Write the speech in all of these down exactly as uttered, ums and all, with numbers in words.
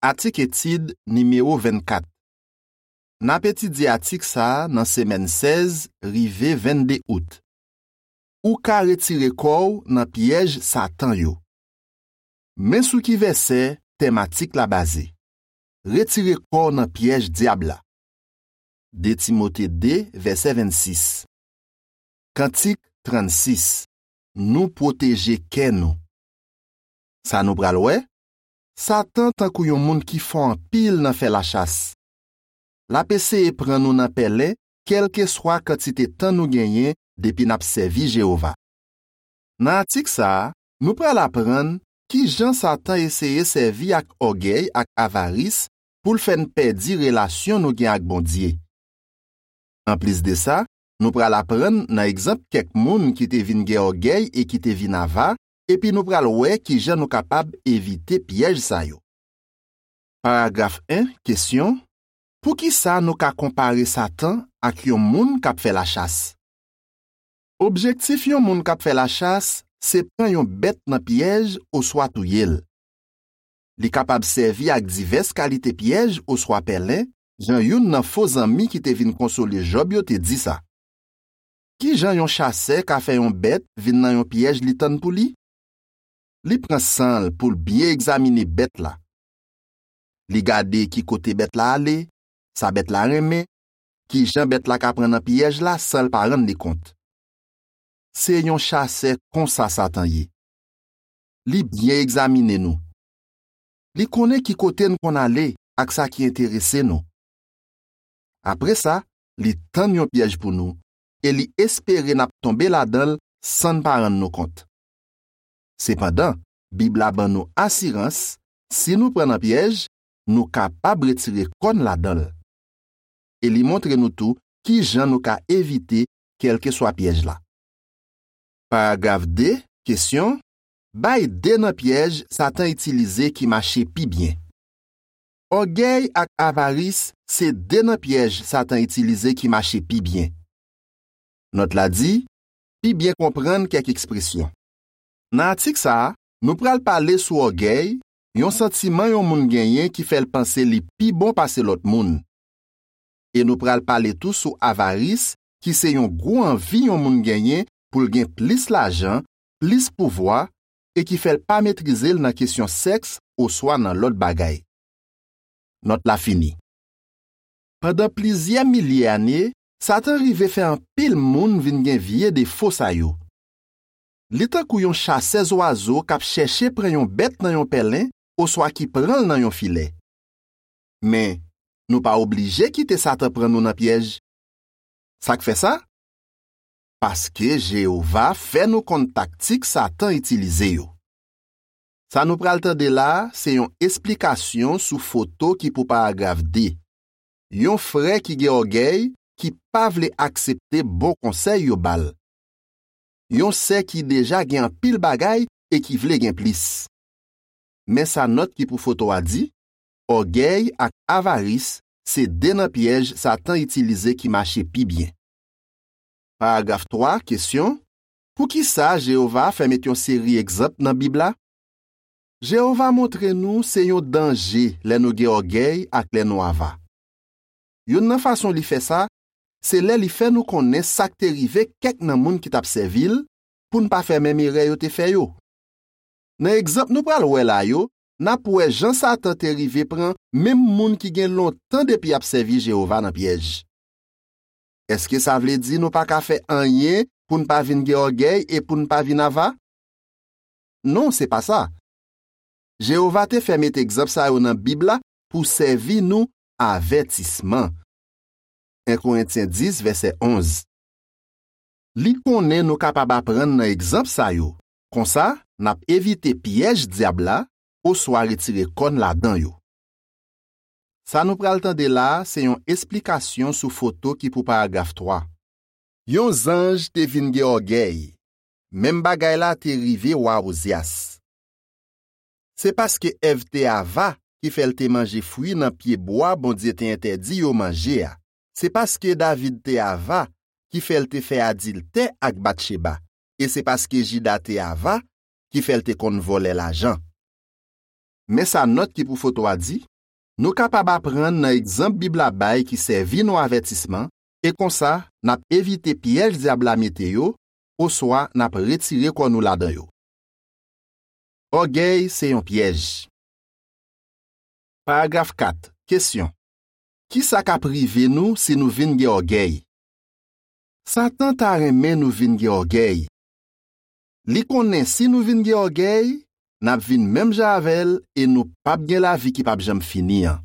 Atik etid nimewo vennkat. N ap etidye atik sa a nan semèn sèz rive vennde out. Ou ka retire kò w nan pyèj Satan yo. Men sou ki vèsè tèm atik la baze. Retire kò w nan pyèj dyab la. de Timote de, vèsè vennsis. Kantik trannsis. Nou pwoteje kè nou. Sa nou pral wè? Satan tankou yon moun ki fò anpil nan fè lachas. L ap eseye pran nou nan pèlen, kèlkeswa kantite tan nou genyen depi n ap sèvi Jewova. Nan atik sa a, nou pral aprann ki jan Satan eseye sèvi ak ògèy ak avaris pou l fè n pèdi relasyon nou gen ak Bondye. Anplis de sa, nou pral aprann nan egzanp kèk moun ki te vin gen ògèy e ki te vin ava, epi nou pral wè ki jan nou kapab evite pyèj sa yo. Paragraf en, kesyon: Poukisa nou ka konpare Satan ak yon moun k ap fè lachas? Objektif yon moun k ap fè lachas se pran yon bèt nan pyèj oswa touye l. Li kapab sèvi ak divès kalite pyèj oswa pèlen, jan youn nan fo zanmi ki te vin konsole Jòb yo te di sa. Ki jan yon chasè ka fè yon bèt vin nan yon pyèj li tann pou li? Li pran san l pou l byen egzamine bèt la. Li gade ki kote bèt la ale, sa bèt la renmen, ki jan bèt la ka pran nan pyèj la san l pa rann li kont. Se yon chasè konsa Satan ye. Li byen egzamine nou. Li konnen ki kote n konn ale ak sa ki enterese nou. Apre sa, li tann yon pyèj pou nou e li espere n ap tonbe ladan l san n pa rann nou kont. Sepandan, Bib la ban nou asirans, si nou pran nan pyèj, nou kapab retire kò n ladan l. E li montre nou tou ki jan nou ka evite kèlkeswa pyèj la. Paragraf de, kesyon: Bay de nan pyèj Satan itilize ki mache pi byen. Ògèy ak avaris se de nan pyèj Satan itilize ki mache pi byen. Nòt la di: Pi byen konprann kèk ekspresyon. Nan atik sa a, nou pral pale sou ògèy, yon santiman yon moun genyen ki fè l panse li pi bon pase lòt moun. E nou pral pale tou sou avaris, ki se yon gwo anvi yon moun genyen pou l gen plis lajan, plis pouvwa, e ki fè l pa metrize l nan kesyon sèks oswa nan lòt bagay. Nòt la fini. Pandan plizyè milye ane, Satan rive fè anpil moun vin gen vye defo sa yo. Li tankou yon chasè zwazo k ap chèche pran yon bèt nan yon pèlen oswa ki pran l nan yon filè. Men, nou pa oblije kite Satan pran nou nan pyèj. Sa k fè sa? Paske Jewova fè nou konn taktik Satan itilize yo. Sa nou pral tande la a se yon esplikasyon sou foto ki pou paragraf de. Yon frè ki gen ògèy ki pa vle aksepte bon konsèy yo ba l. Yon sè ki deja gen anpil bagay e ki vle gen plis. Men sa nòt ki pou foto a di: Ògèy ak avaris se de nan pyèj Satan itilize ki mache pi byen. Paragraf twa, kesyon: Poukisa Jewova fè met yon seri egzanp nan Bib la? Jewova montre nou se yon danje lè nou gen ògèy ak lè nou ava. Youn nan fason li fè sa, se lè li fè nou konnen sa k te rive kèk nan moun ki t ap sèvi l, pou n pa fè menm erè yo te fè yo. Nan egzanp nou pral wè la yo, n ap wè jan Satan te rive pran menm moun ki gen lontan depi y ap sèvi Jewova nan pyèj. Èske sa vle di nou pa ka fè anyen pou n pa vin gen ògèy e pou n pa vin ava? Non, se pa sa. Jewova te fè met egzanp sa yo nan Bib la pou sèvi nou avètisman. en Korentyen dis, vèsè onz. Li konnen nou kapab aprann nan egzanp sa yo. Konsa, n ap evite pyèj dyab la oswa retire kò n ladan yo. Sa nou pral tande la a se yon esplikasyon sou foto ki pou paragraf twa. Yon zanj te vin gen ògèy. Menm bagay la te rive wa Ozyas. Se paske Èv te ava ki fè l te manje fwi nan pyebwa Bondye te entèdi yo manje a. Se paske David te ava ki fè l te fè adiltè ak Batcheba. E se paske Jida te ava ki fè l te konn vòlè lajan. Men sa nòt ki pou foto a di: Nou kapab aprann nan egzanp Bib la bay ki sèvi nou avètisman, e konsa, n ap evite pyèj Dyab la mete yo, oswa n ap retire kò nou ladan yo. Ògèy se yon pyèj. Paragraf kat, kesyon. Ki sa k ap rive nou si nou vin gen ògèy? Satan ta renmen nou vin gen ògèy. Li konnen si nou vin gen ògèy, n ap vin menm jan avè l e nou p ap gen lavi ki p ap janm fini an.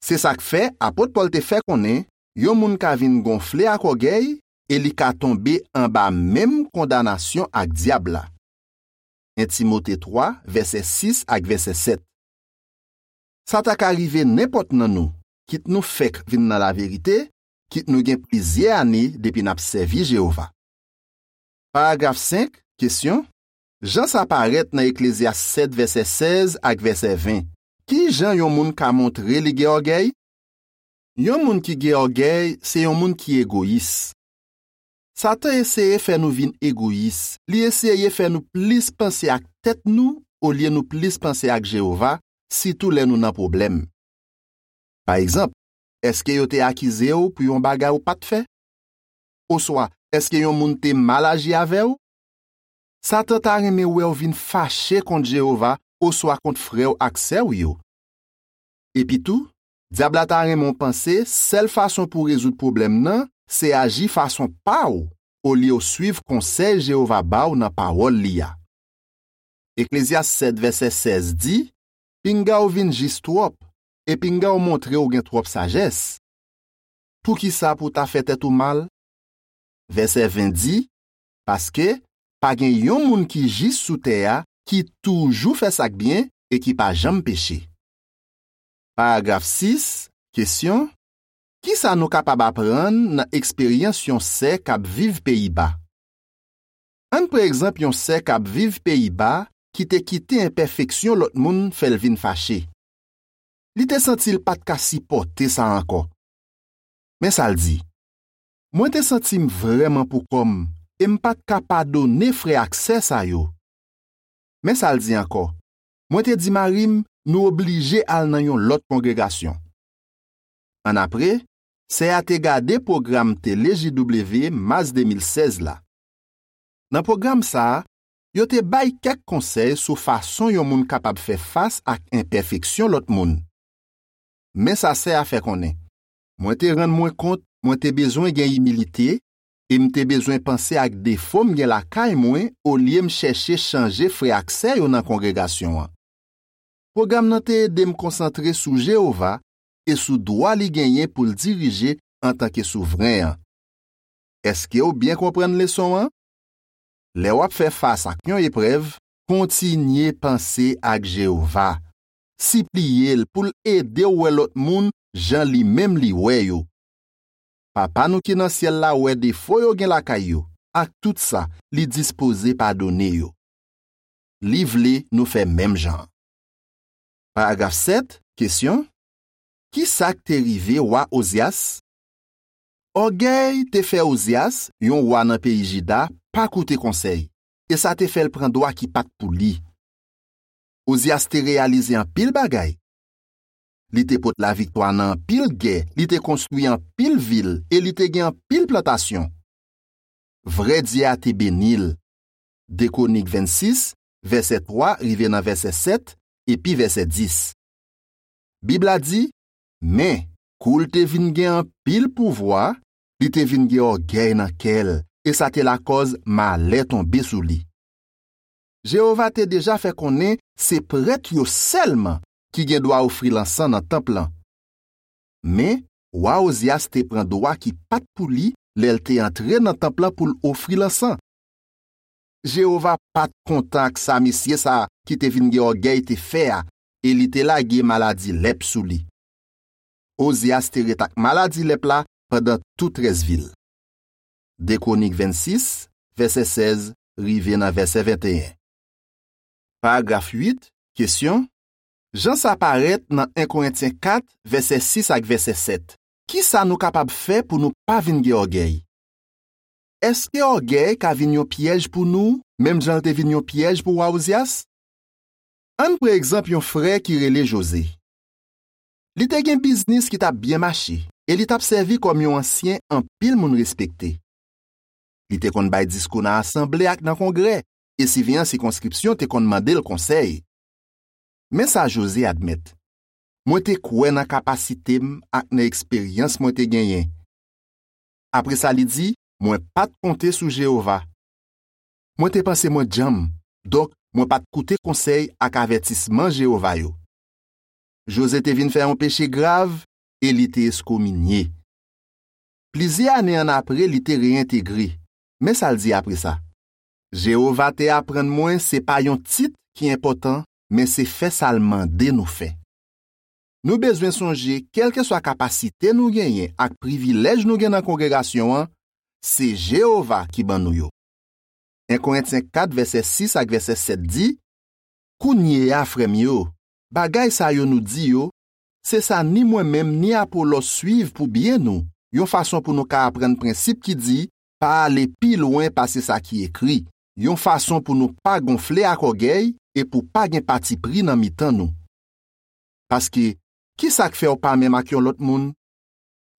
Se sa k fè apot Pòl te fè konnen yon moun ka vin gonfle ak ògèy e li ka tonbe anba menm kondanasyon ak Dyab la. En Timote twa, vèsè sis ak vèsè sèt. Sa ta ka rive nenpòt nan nou, kit nou fèk vin nan laverite, kit nou gen plizyè ane depi n ap sèvi Jewova. Paragraf senk, kesyon. Jan sa parèt nan Eklezyas sèt, vèsè sèz ak vèsè ven, ki jan yon moun ka montre li gen ògèy? Yon moun ki gen ògèy se yon moun ki egoyis. Satan eseye fè nou vin egoyis. Li eseye fè nou plis panse ak tèt nou olye nou plis panse ak Jewova, sitou lè nou nan pwoblèm. Pa egzanp, èske yo te akize w pou yon bagay ou pa t fè? Oswa, èske yon moun te mal aji avè w? Satan ta renmen wè w vin fache kont Jewova oswa kont frè w ak sè w yo. Epitou, Dyab la ta renmen w panse sèl fason pou w rezoud pwoblèm nan se aji fason pa w olye w suiv konsèy Jewova ba w nan Pawòl li a. Eklezyas sèt, vèsè sèz di, pinga w vin jis twòp, e pinga w montre w gen twòp sajès. Poukisa pou w ta fè tèt ou mal? Vèsè ven di, paske pa gen yon moun ki jis sou tè a ki toujou fè sa k byen e ki pa janm peche. Paragraf sis, kesyon. Ki sa nou kapab aprann nan eksperyans yon sè k ap viv Peyiba? Ann pran egzanp yon sè k ap viv Peyiba ki te kite enpèfeksyon lòt moun fè l vin fache. Li te santi l pa t ka sipòte sa ankò. Men sa l di, mwen te santi m vrèman pou kò m e m pa t ka padone frè ak sè sa yo. Men sa l di ankò, mwen te di mari m nou oblije al nan yon lòt kongregasyon. Annapre, sè a te gade pwogram tele J W mas de mil sèz la. Nan pwogram sa a, yo te bay kèk konsèy sou fason yon moun kapab fè fas ak enpèfeksyon lòt moun. Men sa sè a fè konnen, mwen te rann mwen kont mwen te bezwen gen imilite e m te bezwen panse ak defo m gen lakay mwen olye m chèche chanje frè ak sè yo nan kongregasyon an. Pwogram nan te ede m konsantre sou Jewova e sou dwa li genyen pou l dirije antanke Souvren an. Èske w byen konprann leson an? Lè w ap fè fas ak yon eprèv, kontinye panse ak Jewova. Sipliye l pou l ede w wè lòt moun jan li menm li wè yo. Papa nou ki nan syèl la wè defo yo gen lakay yo, ak tout sa, li dispoze padone yo. Li vle nou fè menm jan an. Paragraf sèt, kesyon. Ki sa k te rive wa Ozyas? Ògèy te fè Ozyas, yon wa nan peyi Jida, pa koute konsèy, e sa te fè l pran dwa ki pa t pou li. Ozyas te reyalize anpil bagay. Li te pot laviktwa nan anpil gè, li te konstwi anpil vil e li te gen anpil plantasyon. Vrè Dye a te beni l. De Kwonik vennsis, vèsè twa rive nan vèsè sèt, epi vèsè dis. Bib la di, men, kou l te vin gen anpil pouvwa, li te vin gen ògèy nan kè l, e sa te lakòz malè tonbe sou li. Jewova te deja fè konnen se prèt yo sèlman ki gen dwa ofri lansan nan tanp lan. Men, wa Ozyas te pran dwa ki pa t pou li lè l te antre nan tanp lan pou l ofri lansan. Jewova pa t kontan ak sa mesye sa a ki te vin gen ògèy te fè a, e li te lage maladi lèp sou li. Ozyas te ret ak maladi lèp la pandan tout rès vi l. De Kwonik vennsis, vèsè sèz rive nan vèsè venteyen. Paragraf uit, kesyon. Jan sa parèt nan en Korentyen kat, vèsè sis ak vèsè sèt. Ki sa nou kapab fè pou nou pa vin gen ògèy? Èske ògèy ka vin yon pyèj pou nou, menm jan l te vin yon pyèj pou wa Ozyas? Ann pran egzanp yon frè ki rele Joze. Li te gen biznis ki t ap byen mache e li t ap sèvi kòm yon ansyen anpil moun respekte. Li te konn bay diskou nan asanble ak nan kongrè, e siveyan sikonskripsyon te konn mande l konsèy. Men sa Jozye admèt: "Mwen te kwè nan kapasite m ak nan eksperyans mwen te genyen." Apre sa, li di: "Mwen pa t konte sou Jewova. Mwen te panse mwen djanm, donk mwen pa t koute konsèy ak avètisman Jewova yo." Jozye te vin fè yon peche grav e li te eskominye. Plizyè ane annapre, li te reyentegre. Men sa l di apre sa: "Jewova te aprann mwen se pa yon tit ki enpòtan, men se fè sa l mande nou fè." Nou bezwen sonje, kèlkeswa kapasite nou genyen ak privilèj nou gen nan kongregasyon an, se Jewova ki ban nou yo. En Korentyen kat, vèsè sis ak vèsè sèt di: "Kounye a, frè m yo, bagay sa yo nou di yo, se sa ni mwen menm ni Apolòs suiv pou byen nou, yon fason pou nou ka aprann prensip ki di, pa ale pi lwen pase sa ki ekri, yon fason pou nou pa gonfle ak ògèy e pou pa gen patipri nan mitan nou." Paske, ki sa k fè w pa menm ak yon lòt moun?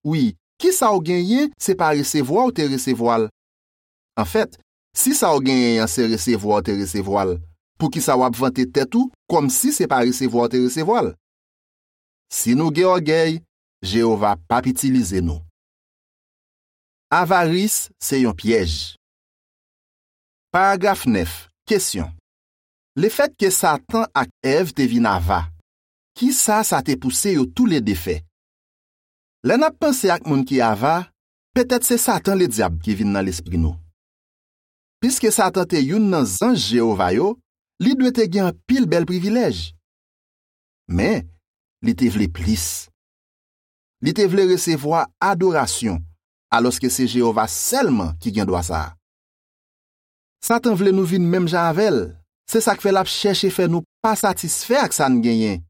Wi, ki sa w genyen, se pa resevwa w te resevwa l? Anfèt, si sa w genyen an se resevwa w te resevwa l, poukisa w ap vante tèt ou kòmsi se pa resevwa w te resevwa l? Si nou gen ògèy, Jewova p ap itilize nou. Avaris se yon pyèj. Paragraf nèf. Kesyon: Lefètke Satan ak Èv te vin ava, ki sa sa te pouse yo toulede fè? Lè n ap panse ak moun ki ava, petèt se Satan Ledyab ki vin nan lespri nou. Piske Satan te youn nan zanj Jewova yo, li dwe te gen anpil bèl privilèj. Men, li te vle plis. Li te vle resevwa adorasyon, alòske se Jewova sèlman ki gen dwa sa a. Satan vle nou vin menm jan avè l. Se sa k fè l ap chèche fè nou pa satisfè ak sa n genyen.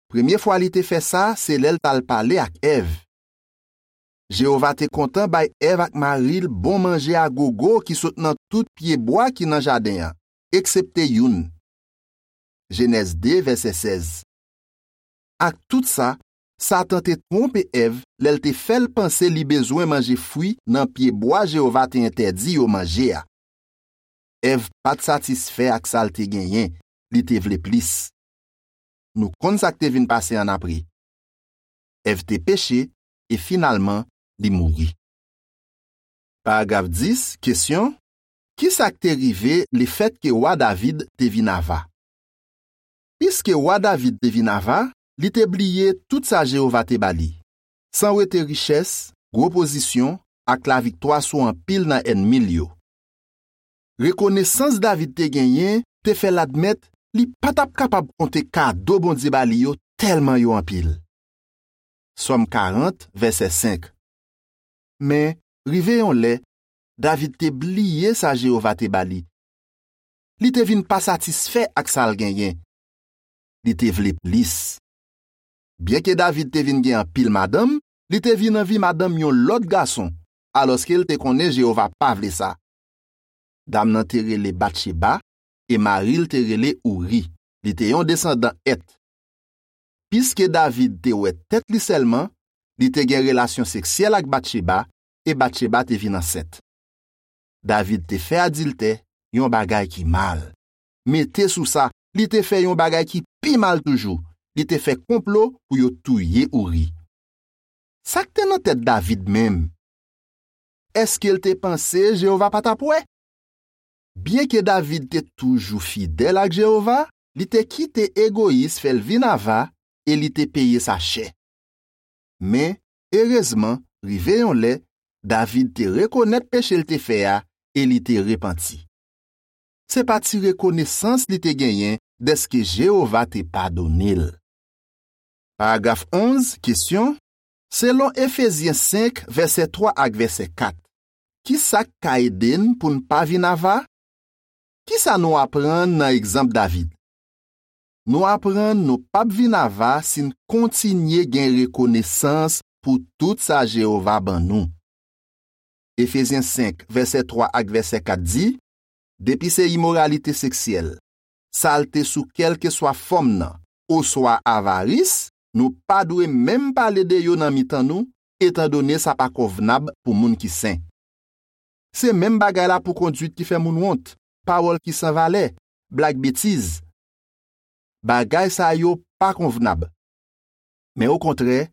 Premye fwa li te fè sa, se lè l t al pale ak Èv. Jewova te kontan bay Èv ak mari l bon manje a gogo ki sot nan tout pyebwa ki nan jaden an, eksepte youn. Jenèz de, vèsè sèz. Ak tout sa, Satan te twonpe Èv lè l te fè l panse li bezwen manje fwi nan pyebwa Jewova te entèdi yo manje a. Èv pa t satisfè ak sa l te genyen, li te vle plis. Nou konn sa k te vin pase annapre. Èv te peche e finalman li mouri. Paragraf dis, kesyon: Ki sa k te rive lefètke wa David te vin ava? Piske wa David te vin ava, li te bliye tout sa Jewova te ba li, san wete richès, gwo pozisyon, ak laviktwa sou anpil nan ènmi l yo. Rekonesans David te genyen te fè l admèt li pa t ap kapab konte kado Bondye ba li yo tèlman yo anpil. Sòm karant, vèsè senk. Men, rive yon lè, David te bliye sa Jewova te ba li. Li te vin pa satisfè ak sa l genyen. Li te vle plis. Byenke David te vin gen anpil madanm, li te vin anvi madanm yon lòt gason, alòske l te konnen Jewova pa vle sa. Dam nan te rele Batcheba, e mari l te rele Ouri. Li te yon desandan Èt. Piske David te wè tèt li sèlman, li te gen relasyon seksyèl ak Batcheba, e Batcheba te vin ansent. David te fè adiltè, yon bagay ki mal. Mete sou sa, li te fè yon bagay ki pi mal toujou. Li te fè konplo pou yo touye Ouri. Sa k te nan tèt David menm? Èske l te panse Jewova pa t ap wè? Byenke David te toujou fidèl ak Jewova, li te kite egoyis fè l vin ava e li te peye sa chè. Men, erezman, rive yon lè, David te rekonèt peche l te fè a e li te repanti. Se pa ti rekonesans li te genyen dèske Jewova te padone l. Paragraf onz, kesyon: Selon Efezyen senk, vèsè twa ak vèsè kat, ki sa k ka ede n pou n pa vin ava? Ki sa nou aprann nan egzanp David? Nou aprann nou p ap vin ava si n kontinye gen rekonesans pou tout sa Jewova ban nou. Efezyen senk, vèsè twa ak vèsè kat di: Depi se imoralite seksyèl, salte sou kèlkeswa fòm nan, oswa avaris, nou pa dwe menm pale de yo nan mitan nou, etandone sa pa konvnab pou moun ki sen. Se menm bagay la pou kondwit ki fè moun wont, pawòl ki san valè, blag betiz. Bagay sa yo pa konvnab. Men okontrè,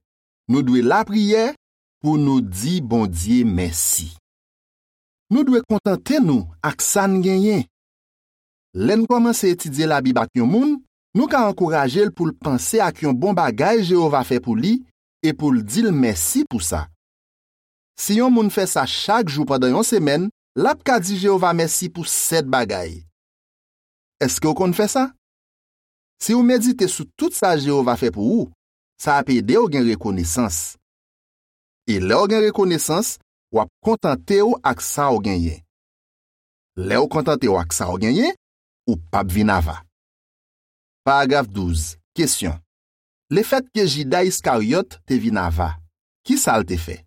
nou dwe lapriyè pou nou di Bondye mèsi. Nou dwe kontante nou ak sa n genyen. Lè n kòmanse etidye Labib ak yon moun, nou ka ankouraje l pou l panse ak yon bon bagay Jewova fè pou li e pou l di l mèsi pou sa. Si yon moun fè sa chak jou pandan yon semèn, l ap ka di Jewova mèsi pou sèt bagay. Èske w konn fè sa? Si w medite sou tout sa Jewova fè pou ou, sa ap ede w gen rekonesans. E lè w gen rekonesans, w ap kontante w ak sa w genyen. Lè w kontante w ak sa w genyen, ou p ap vin ava. Paragraf douz. Kesyon. Lefètke Jida Iskaryòt te vin ava, ki sa l te fè?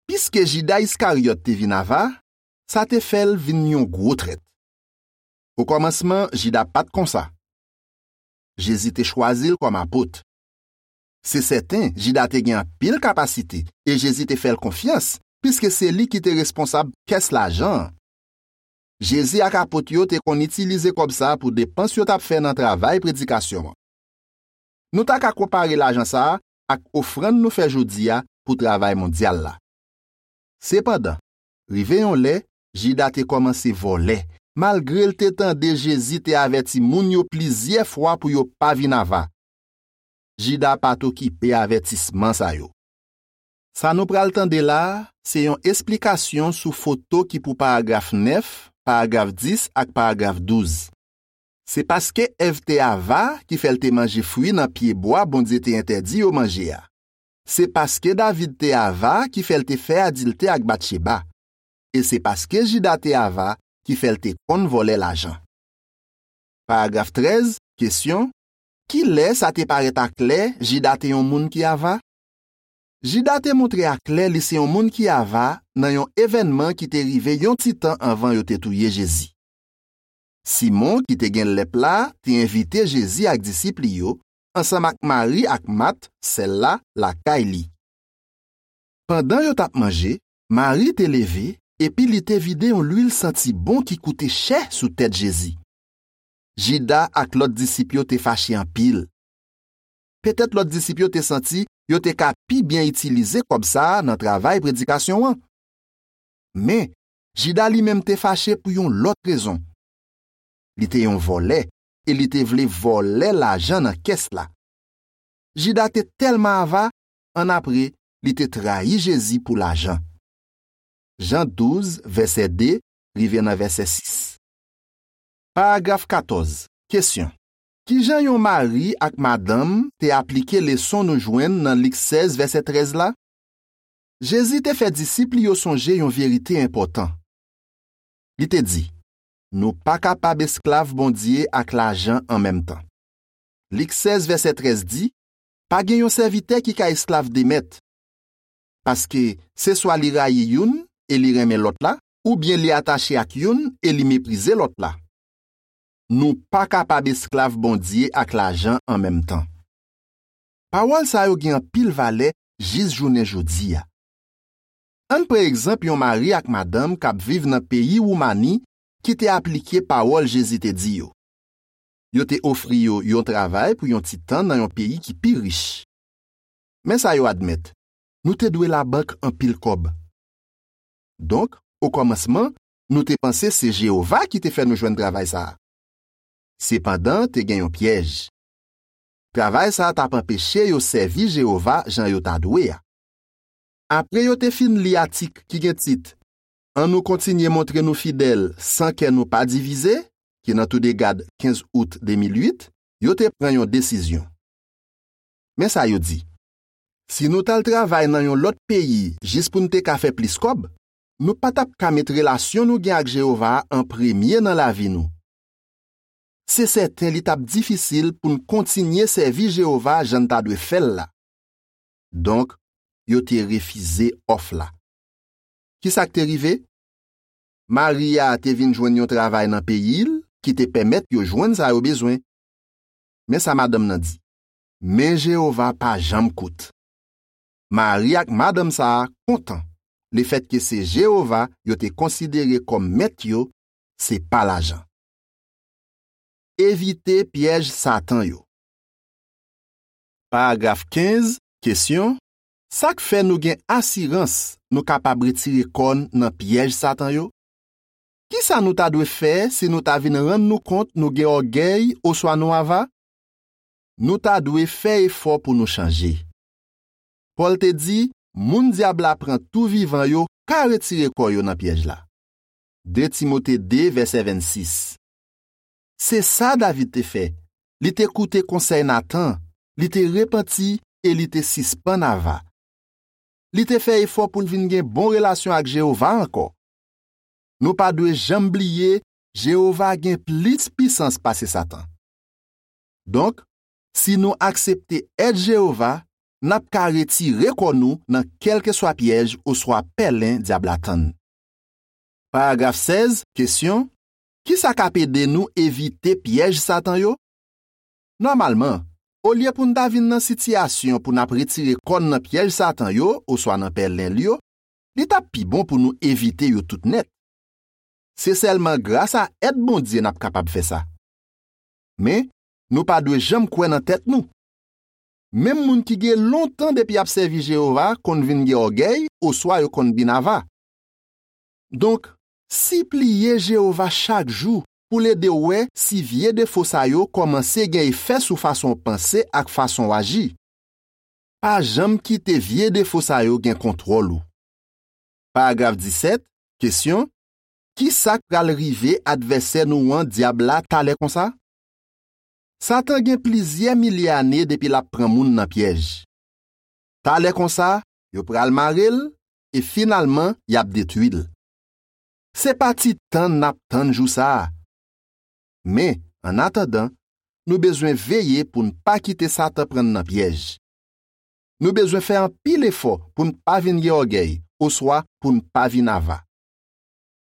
Piske Jida Iskaryòt te vin ava, sa te fè l vin yon gwo trèt. Okòmansman, Jida pa t konsa. Jezi te chwazi l kòm apot. Se sèten, Jida te gen anpil kapasite e Jezi te fè l konfyans, piske se li ki te responsab kès lajan an. Jezi ak apot yo te konn itilize kòb sa a pou depans yo t ap fè nan travay predikasyon an. Nou ta ka konpare lajan sa a ak ofrann nou fè jodi a pou travay mondyal la. Sepandan, rive yon lè, Jida te kòmanse vòlè, malgre l te tande Jezi te avèti moun yo plizyè fwa pou yo pa vin ava. Jida pa t okipe avètisman sa yo. Sa nou pral tande la a, se yon esplikasyon sou foto ki pou paragraf nèf, paragraf dis ak paragraf douz. Se paske Èv te ava ki fè l te manje fwi nan pyebwa Bondye te entèdi yo manje a. Se paske David te ava ki fè l te fè adiltè ak Batcheba. E se paske Jida te ava ki fè l te konn vòlè lajan. Paragraf trèz, kesyon. Ki lè sa te parèt aklè Jida te yon moun ki ava? Jida te montre aklè li se yon moun ki ava nan yon evènman ki te rive yon ti tan anvan yo te touye Jezi. Simon, ki te gen lèp la, te envite Jezi ak disip li yo, ansanm ak Mari ak Mat, sè l la, lakay li. Pandan yo t ap manje, Mari te leve, epi li te vide yon lwil santi bon ki koute chè sou tèt Jezi. Jida ak lòt disip yo te fache anpil. Petèt lòt disip yo te santi yo te ka pi byen itilize kòb sa a nan travay predikasyon an. Men, Jida li menm te fache pou yon lòt rezon. Li te yon vòlè e li te vle vòlè lajan nan kès la. Jida te tèlman ava, annapre, li te trayi Jezi pou lajan. Jan douz, vèsè de, rive nan vèsè sis. Paragraf katòz. Kesyon. Ki jan yon mari ak madanm te aplike leson nou jwenn nan Lik sèz, vèsè trèz la? Jezi te fè disip li yo sonje yon verite enpòtan. Li te di, nou pa kapab esklav Bondye ak lajan an menm tan. Lik sèz, vèsè trèz di, pa gen yon sèvitè ki ka esklav de mèt. Paske, se swa li rayi youn e li renmen lòt la, oubyen li atache ak youn e li meprize lòt la. Nou pa kapab esklav Bondye ak lajan an menm tan. Pawòl sa yo gen anpil valè jis jounen jodi a. Ann pran egzanp yon mari ak madanm k ap viv nan peyi Woumani ki te aplike pawòl Jezi te di yo. Yo te ofri yo yon travay pou yon ti tan nan yon peyi ki pi rich. Men sa yo admèt, nou te dwe labank anpil kòb. Donk, okòmansman, nou te panse se Jewova ki te fè nou jwenn travay sa a. Sepandan, te gen yon pyèj. Travay sa a t ap anpeche yo sèvi Jewova jan yo ta dwe a. Apre yo te fin li atik ki gen tit Annou kontinye montre nou fidèl san kè nou pa divize, ki nan Toudegad kenz out de mil uit, yo te pran yon desizyon. Men sa yo di, si nou t al travay nan yon lòt peyi jis pou n te ka fè plis kòb, nou pa t ap ka met relasyon nou gen ak Jewova a an premye nan lavi nou. Se sèten li t ap difisil pou n kontinye sèvi Jewova jan n ta dwe fè l la. Donk, yo te refize òf la. Ki sa k te rive? Mari a te vin jwenn yon travay nan peyi l ki te pèmèt yo jwenn sa yo bezwen. Men sa madanm nan di, Men Jewova pa janm kout. Mari ak madanm sa a kontan lefètke se Jewova yo te konsidere kòm Mèt yo, se pa lajan. Evite pyèj Satan yo. Paragraf kenz, kesyon, sa k fè nou gen asirans nou kapab retire kò n nan pyèj Satan yo? Ki sa nou ta dwe fè si nou ta vin rann nou kont nou gen ògèy oswa nou ava? Nou ta dwe fè efò pou nou chanje. Pòl te di, moun dyab la pran tou vivan yo ka retire kò yo nan pyèj la. De Timote de, vèsè vennsis. Se sa David te fè. Li te koute konsèy Natan, li te repanti e li te sispann ava. Li te fè efò pou l vin gen bon relasyon ak Jewova ankò. Nou pa dwe janm bliye Jewova gen plis pisans pase Satan. Donk, si nou aksepte èd Jewova, n ap ka retire kò nou nan kèlkeswa pyèj oswa pèlen dyab la tann. Paragraf sèz, kesyon, ki sa k ap ede nou evite pyèj Satan yo? Nòmalman, olye pou n ta vin nan sitiyasyon pou n ap retire kò n nan pyèj Satan yo oswa nan pèlen l yo, li t ap pi bon pou nou evite yo tout nèt. Se sèlman grasa èd Bondye n ap kapab fè sa. Men, nou pa dwe janm kwè nan tèt nou. Menm moun ki gen lontan depi y ap sèvi Jewova konn vin gen ògèy oswa yo konn vin ava. Donk, sipliye Jewova chak jou pou l ede w wè si vye defo sa yo kòmanse gen efè sou fason w panse ak fason w aji. Pa janm kite vye defo sa yo gen kontwòl ou. Paragraf disèt, kesyon, ki sa k pral rive advèsè nou an, dyab la, talè konsa? Satan gen plizyè milye ane depi l ap pran moun nan pyèj. Talè konsa, yo pral mare l e finalman y ap detwi l. Se pa ti tann n ap tann jou sa a. Men, annatandan, nou bezwen veye pou n pa kite Satan pran n nan pyèj. Nou bezwen fè anpil efò pou n pa vin gen ògèy oswa pou n pa vin ava.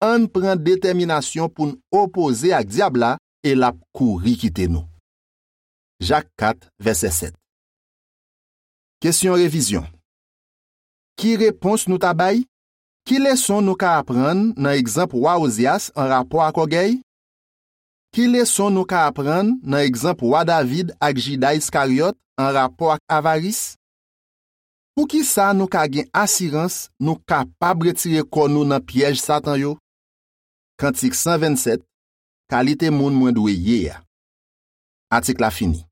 Ann pran detèminasyon pou n opoze ak dyab la e l ap kouri kite nou. Jak kat, vèsè sèt. Kesyon revizyon. Ki repons nou ta bay? Ki leson nou ka aprann nan egzanp wa Ozyas anrapò ak ògèy? Ki leson nou ka aprann nan egzanp wa David ak Jida Iskaryòt anrapò ak avaris? Poukisa nou ka gen asirans nou kapab retire kò nou nan pyèj Satan yo? Kantik san vennsèt, kalite moun mwen dwe ye a. Atik la fini.